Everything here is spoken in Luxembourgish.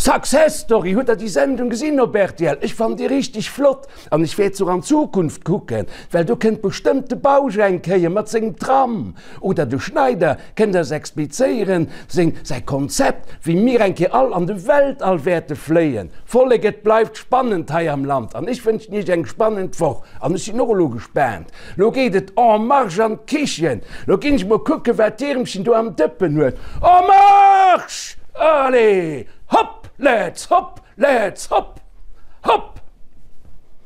Success Story, hutt der déi Sendung gesinn op rtl? Ech fannen déi richteg flott an ech wäert se och an Zukunft kucken, well do kënnt bestëmmt de Bausch eng Kéier mat sengem Tram oder de Schneider kënnt eis explizéieren seng säi Konzept, wéi mir eng Kéier all an de Weltall wäerte fléien. Vollek, et bleift spannend hei am Land an ech wënschen iech eng spannend Woch an ech sinn och elo gespaant. Lo geet et en marche an d'Kichen. Lo ginn ech mol kucken, wat d'Iermchen do am Dëppen huet. En marche! Allez, hopp, let's hopp, let's hopp, hopp!